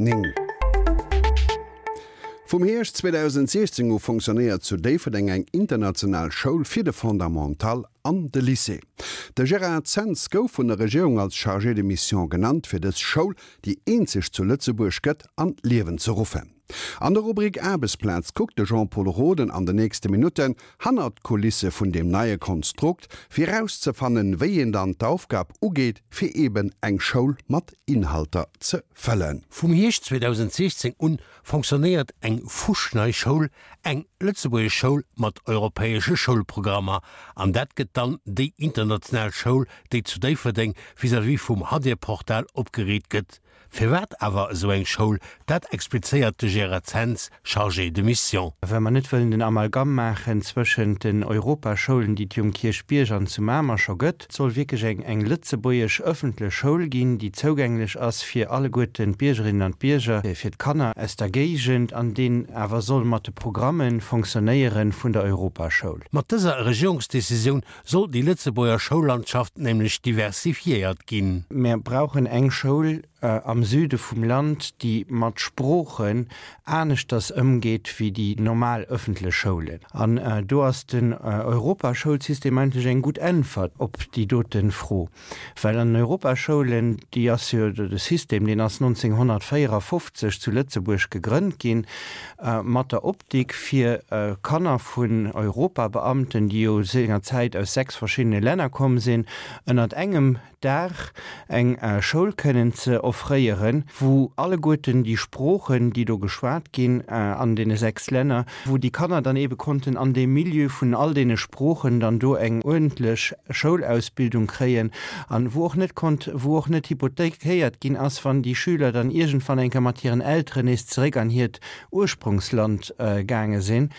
9. Vum Hierscht 2016 u fonctionnéiert zu Déifferdeng eng international Schoul fir de Fondamental an de Lycée. De Gérard Zens gouf vun der Regierung als Chargé de mission genannt, fir dës Schoul, déi eenzeg zu Lëtzebuerg gëtt, an d'Liewen ze ruffen. An der Rubrik Aarbechtsplaz kuckt de Jean-Pol Roden an de nächste Minutten hannert d'Kulisse vun deem neie Konstrukt, fir erauszefannen, wéi een dann d'Aufgab ugeet, fir eben eng Schoul mat Inhalter ze fëllen. Vum Hierscht 2016 un fonctionnéiert eng fuschnei Schoul, eng lëtzebuergesch Schoul mat europäesche Schoulprogrammer. An dat gëtt dann déi international Schoul, déi zu Déifferdeng vis-à-vis vum Hadir-Portal opgeriit gëtt. Firwat awer esou eng Schoul, dat explizéiert de Gérard Zens, Chargé de mission. Well mer net wëllen den Amalgam maachen zwëschent den Europaschoulen, déi et jo um Kierchbierg an zu Mamer scho gëtt. Et soll wierklech eng eng lëtzebuergesch ëffentlech Schoul ginn, déi zougänglech ass fir alleguerten d'Biergerinnen an d'Bierger, fir d'Kanner aus der Géigend, an deen awer soll mat de Programme fonctionnéiere vun der Europaschoul. Mat dëser Regierungsdecisioun soll déi Lëtzebuerger Schoullandschaft nämlech diversifiéiert ginn. Mir brauchen eng Schoul am Süde vum Land, déi mat Sproochen aneschters ëmgeet wéi déi normal ëffentlech Schoulen. An do ass den Europaschoulsystem eigentlech eng gutt Äntwert op déi dote Fro. Well an den Europaschoulen, déi ass jo, de System, deen ass 1954 zu Lëtzebuerg gegrënnt ginn, mat der Optik fir Kanner vun Europabeamten, déi jo sengerzäit aus 6 verschiddene Länner komm sinn, ënnert engem Daach eng Schoul kënnen ze offréieren, wou alleguerten déi Sproochen, déi do geschwat ginn an deene 6 Länner, wou déi Kanner dann eebe konnten an deem Milieu vun all deene Sproochen dann do eng uerdentlech Schoulausbildung kréien an wou och net konnt, wou och net hypothekéiert ginn ass, wann déi Schüler dann iergendwann eng Kéier mat hiren Elteren nees zeréck an hiert Ursprongsland gaange sinn.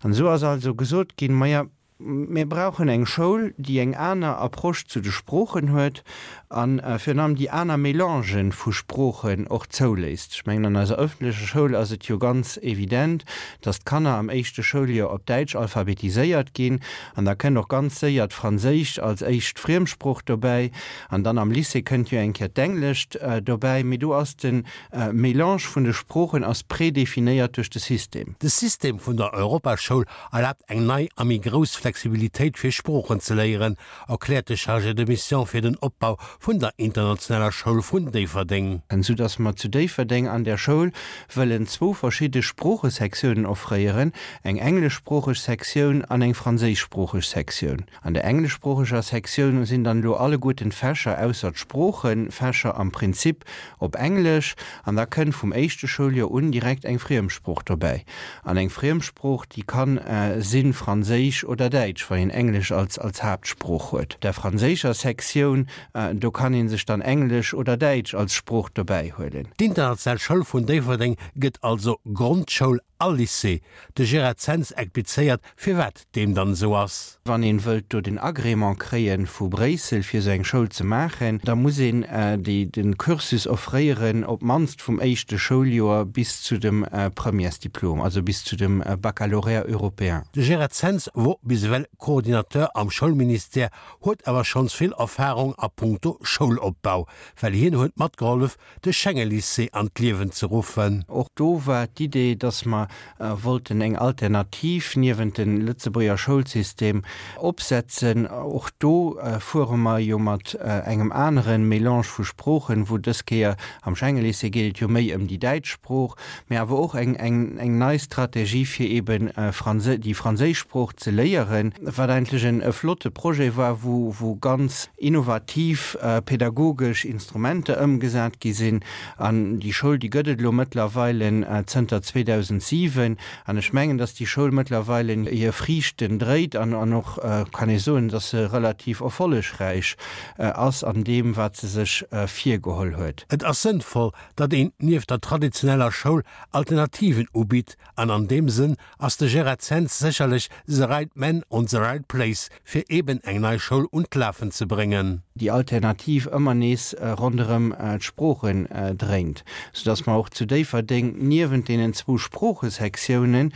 An esou ass also gesot ginn, Maja, Mir brauchen eng Schoul, déi eng aner Approche zu de Sproochen huet a virun allem déi aner Mélangen vu Sproochen och zouléisst. Ech mengen, an eiser öffentlecher Schoul ass et jo ganz evident, dass d'Kanner am éischte Schouljoer op Däitsch alphabetiséiert ginn an da kënnt och ganz séier d'Franséischt als éischt Friemsprooch dobäi an dann am Lycée kënnt jo eng Kéier d'Englescht dobäi. Mee do ass de Mélange vun de Sproochen ass prédéfinéiert duerch de System. De System vun der Europaschoul erlaabt eng nei a méi grouss Flexibilitéit fir Sproochen ze léieren, erkläert de Chargé de mission fir den Opbau vun der internationaler Schoul vun Déifferdeng. Sou dass mer zu Déifferdeng an der Schoul wëllen zwou verschidde Sproochesektiounen offréieren, eng engleschsproocheg Sektioun an eng franséischsproocheg Sektioun. An der engleschsproocheger Sektioun sinn dann elo alleguerten d'Fächer ausser d'Sproochefächer am Prinzip op Englesch an da kënnt vum éischte Schouljoer un direkt eng Friemsprooch dobäi. An eng Friemsprooch, déi kann sinn Franséisch oder Däitsch, wann een Englesch als als Haaptsprooch huet. Der franséischer Sektioun, do kann ee sech dann Englesch oder Däitsch als Sprooch dobäi huelen. D'International Schoul vun Déifferdeng gëtt also Grondschoul a Lycée. De Gérard Zens explizéiert, firwat deem dann esou ass. Wann een wëllt do den Agrément kréien vu Bréissel fir esou eng Schoul ze maachen, da muss een déi den Cursus offréieren op d'mannst vum éischte Schouljoer bis zu dem Premièresdiplom, also bis zu dem Baccalauréat européen. De Gérard Zens wor bis ewell Coordinateur am Schoulministère, huet awer schonns vill Erfarung a punkto Schoulopbau, well hien huet matgehollef de Schengelycée an d'Liewen ze ruffen. Och do war d'Idee, dass mer wollten eng Alternativ niewent de Lëtzebuerger Schoulsystem opsetzen. Och do fuere mer jo mat engem anere Mélange vu Sproochen, wou dës Kéier am Schengelycée geet et jo méi ëm déi däitsch Sprooch, mä awer och eng eng nei Strategie fir eeben déi franséisch Sprooch ze léieren, wat eigentlech e flotte Projet war, wou ganz innovativ pädagogesch Instrumenter ëmgesat gi sinn. An déi Schoul, déi gëtt et elo mëttlerweile zënter 2007. An ech mengen, dass déi Schoul mëttlerweile hir Friichten dréit an och kann ee soen, dass se relativ erfollegräich ass an deem, wat se sech virgeholl huet. Et ass sënnvoll, datt een nieft der traditioneller Schoul Alternativen ubitt an an deem Sënn ass de Gérard Zens sécherlech the right man on the right place, fir eben eng nei Schoul un d'Lafen ze bréngen. Déi Alternativ ëmmer nees ronderëm d'Sproochen dréint, soudass mer och zu Déifferdeng niewent deenen zwou Sproochesektiounen. Sproochesektiounen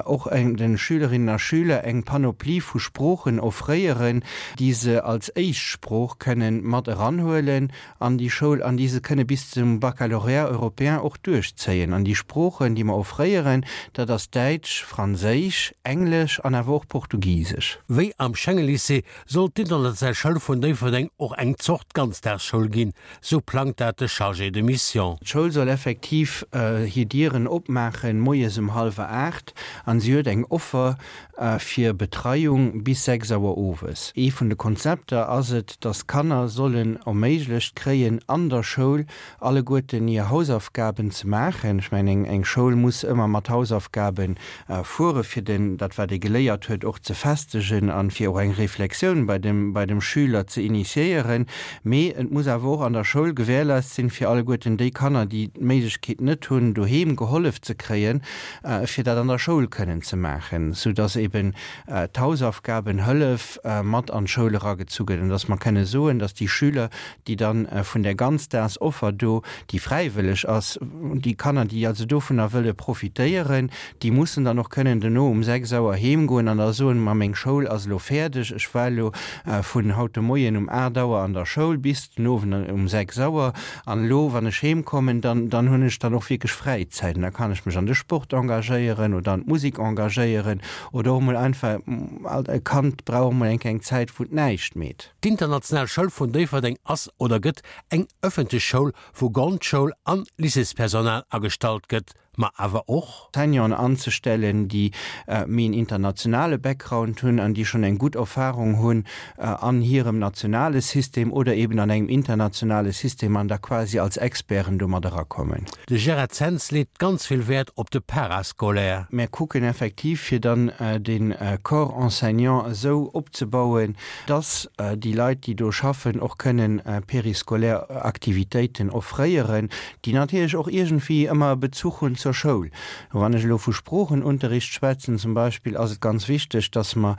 och de Schülerinnen a Schüler eng Panoplie vu Sproochen offréieren, déi se als éischt Sprooch kënnen mat eranhuelen an déi Schoul an déi se kënne bis zum Baccalauréat européen och duerchzéien. An déi Sproochen, déi mer offréieren, dat ass Däitsch, Franséisch, Englesch an awer och Portugisesch. Wéi am Schengen-Lycée soll d'International Schoul vun Déifferdeng och eng Zort Ganzdagsschoul ginn, sou plangt dat de Chargé de mission. D'Schoul soll effektiv hir Dieren opmaachen moies um hallwer 8 an si huet eng Offer fir Betreiung bis 6 Auer owes. Ee vun de Konzepter ass et, dass d'Kanner sollen erméiglecht kréien an der Schoul alleguerten hir Hausaufgaben ze maachen. Ech mengen, eng Schoul muss ëmmer mat Hausaufgabe fuere fir den, dat wat ee geléiert huet, och ze festegen an fir och eng Reflexioun bei dem, bei dem Schüler ze initiéieren. Mee et muss awer och an der Schoul gewährleist sinn, fir alleguerten déi Kanner, déi d'Méiglechkeet net hunn, doheem gehollef ze kréien, fir dat an der Schoul kënnen ze maachen, sou dass eben d'Hausaufgabenhëllef mat an d'Schoul eragezu gëtt an dass mer kënne soen, dass déi Schüler, déi dann vun där Ganzdagsoffer do, déi fräiwëlleg ass, déi Kanner, déi also dovunner wëlle profitéieren, déi mussen dann och kënnen dono um 6 Auer heemgoen an da soen, ma meng Schoul ass elo fäerdeg, ech war elo vun haut de Moien um 8 Auer an der Schoul bis den Owend um 6 Auer an elo, wann ech heemkommen, dann, dann hunn ech dann och wierklech Fräizäit an da kann ech mech an de Sport engagéieren oder an d'Musek engagéieren oder och emol einfach, e Kand brauch och emol eng kleng Zäit, wou et näischt meet. D'International Schoul vun Déifferdeng ass oder gëtt eng ëffentlech Schoul, wou Grondschoul an Lycéespersonal agestallt gëtt, ma awer och. Enseignanten anzestellen, déi méi en internationale Background hunn an déi schonn eng gutt Erfahrung hunn an hirem nationale System oder eben an engem internationale System an da quasi als Experten do mat erakommen. De Gérard Zens leet ganz vill Wäert op de Parascolaire. Mär kucken effektiv, fir dann de Corps enseignant esou opzebauen, dass déi Leit, déi do schaffen, och kënnen périscolaire Aktivitéiten offréieren, déi natierlech och iergendwéi ëmmer e Bezuch hunn zur Schoul. Wann ech elo vu Sproochenunterricht schwätzen zum Beispill, ass et ganz wichteg, dass mer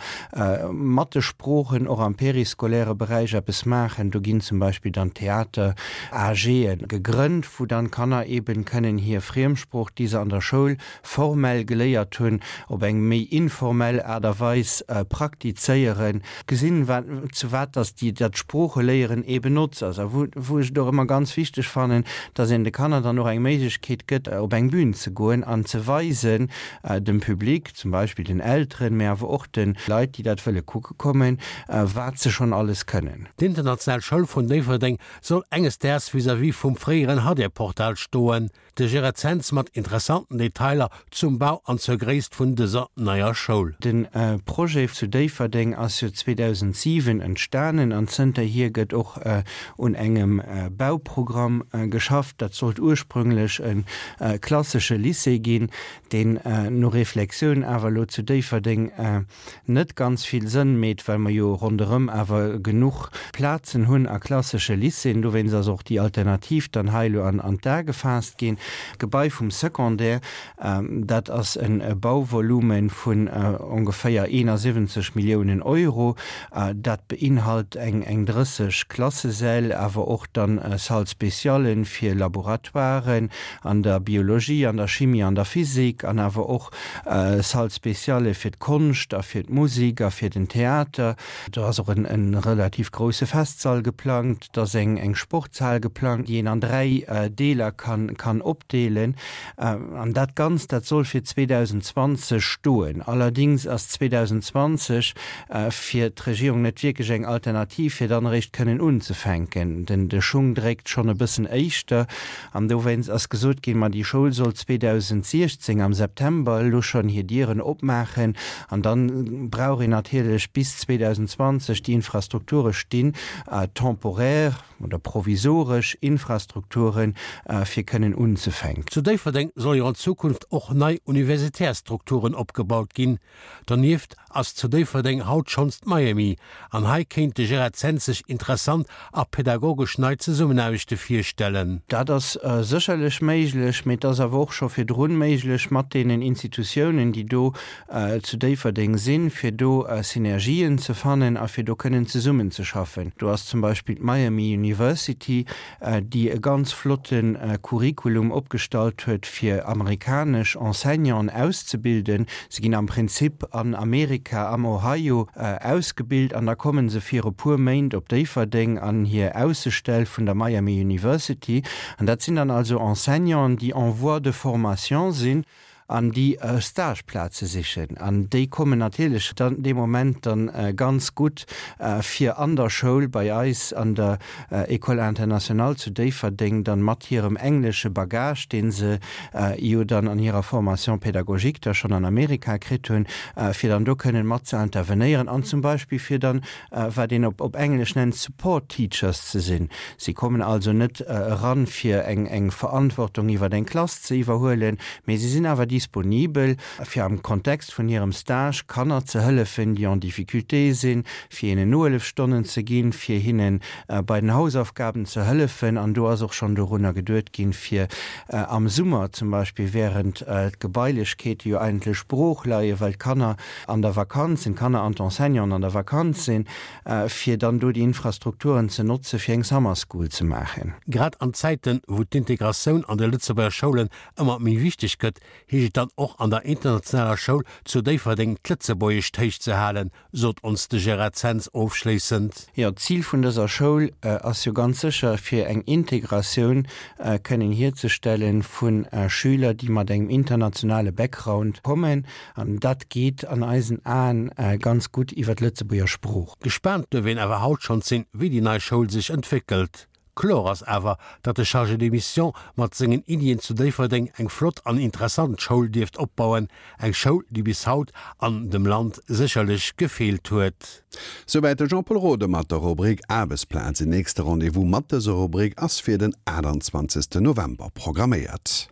mat de Sproochen och am périscolaire Beräich eppes maachen. Do ginn zum Beispill dann Theater-AGe gegrënnt, wou dann d'Kanner eeben kënnen hir Friemsprooch, déi se an der Schoul formell geléiert hunn, op eng méi informell Aart a Weis praktizéieren, gesinn, wat, zu wat dass déi, dat Sproocheléieren eeben notz ass. A wou, wou ech et och ëmmer ganz wichteg fannen, dass een de Kanner dann och eng Méiglechkeet gëtt, op eng Bühn ze goen an ze weisen dem Public, zum Beispill den Elteren, mä awer och de Leit, déi dat wëlle kucke kommen, wat se schonn alles kënnen. D'International Schoul vun Déifferdeng soll enges Daags vis-à-vis vum fréieren Hadir-Portal stoen. De Gérard Zens mat interessanten Detailer zum Bau an zur Gréisst vun dëser neier Schoul. De Projet zu Déifferdeng ass jo 2007 entstanen an zënterhier gëtt och un engem Bauprogramm geschafft. Dat sollt ursprünglech e klassesche Lycée ginn, deen no Reflexioun awer elo zu Déifferdeng net ganz vill Sënn meet, well mer jo ronderëm awer genuch Plazen hunn a klassesche Lycéeën. Dowéinst ass och déi Alternativ dann hei elo an d'A gefaasst ginn. D'Gebai vum Secondaire, dat ass e Bauvolume vun ongeféier 71 Milliounen Euro. Dat beinhalt eng 30 Klassesäll, awer och dann Salles spéciallen fir Laboratoiren an der Biologie, an der Chimie, an der Physik an awer och Salle spéciale fir d'Konscht a fir d'Musik a fir den Theater. Do ass och en relativ grousse Festsall geplangt. Et ass eng Sportshal geplangt, déi een an 3 Deeler kann opdeelen. An dat Ganzt, dat soll fir 2020 stoen. Allerdings ass 2020 fir d'Regierung net wierklech eng Alternativ, fir dann eréischt kënnen unzefänken. De Schung dréckt schonn e bëssen éischter. An dowéinst ass gesot ginn, ma déi Schoul soll 2016 am September elo schonn hir Dieren opmaachen. An da brauch een natierlech bis 2020 déi Infrastrukture stinn, temporaire oder provisoresch Infrastrukturen, fir kënnen unzefänken. Zu Déifferdeng solle jo an Zukunft och nei universitär Strukturen opgebaut ginn. Donieft ass zu Déifferdeng haut schonns d'Miami an hei kéint de Gérard Zens sech interessant a pädagogesch nei Zesummenaarbechte virstellen. Dat ass sécherlech méiglech, mee et ass awer och. och scho virdrun méiglech mat deenen Institutiounen, déi do zu Déifferdeng sinn, fir do Synergien ze fannen a fir do kënnen zesummenzeschaffen. Do ass zum Beispill d'Miami University, déi e ganz flotte Curriculum opgestallt huet, fir amerikanesch Enseignanten auszebilden. Se ginn am Prinzip an Amerika, am Ohio, ausgebilt an da komme se fir e puer Méint op Déifferdeng an hir Aussestell vun der Miami University. An dat sinn dann also Enseignanten, déi en voie de formation sinn an déi Stageplaze sichen. An déi kommen natierlech dann dee Moment dann ganz gutt, fir an der Schoul bei eis an der École internationale zu Déifferdeng dann mat hirem englesche Bagage, dee se jo dann an hirer Formation pédagogique da schonn an Amerika kritt hunn, fir dann do kënnen mat ze intervenéieren an zum Beispill fir dann, wat een op Englesch nennt, Support Teachers ze sinn. Si kommen also net eran, fir eng Verantwortung iwwer eng Klass ze iwwerhuelen, mee si sinn awer disponibel, fir am Kontext vun hirem Stage Kanner ze hëllefen, déi en difficulté sinn, fir hinnen Nohëllefstonnen ze ginn, fir hinne bei den Hausaufgaben ze hëllefen. An do ass och schonn dorunner geduet ginn, fir am Summer zum Beispill, während d'Gebailechkeete jo eigentlech brooch leien, well d'Kanner an der Vakanz sinn, d'Kanner an d'Enseignanten an der Vakanz sinn, fir dann do déi Infrastrukturen ze notze fir eng Summer School ze maachen. Grad an Zäiten, wou d'Integratioun an de Lëtzebuerger Schoulen ëmmer méi wichteg gëtt, heescht et dann och an der internationaler Schoul zu Déifferdeng d'Lëtzebuergescht héich ze halen, sot ons de Gérard Zens ofschléissend. Jo, d'Zil vun dëser Schoul ass jo ganz sécher, fir eng Integratioun kënnen hierzestelle vu Schüler, déi mat engem internationale Background kommen. An dat geet an eisen Aen ganz gutt iwwer d'Lëtzebuerger Sprooch. Gespaant duerf een awer haut schonns sinn, wéi déi nei Schoul sech entwéckelt. Kloer ass awer, datt de Chargé de mission mat sengen Iddien zu Déifferdeng eng flott an interessant Schoul dierft opbauen, eng Schoul, déi bis haut an dem Land sécherlech gefeelt huet. Souwäit de Jean-Pol Rode mat der Rubrik Aarbechtsplaz. En nächste Rendez-vous mat dëser Rubrik ass fir den 28 November programméiert.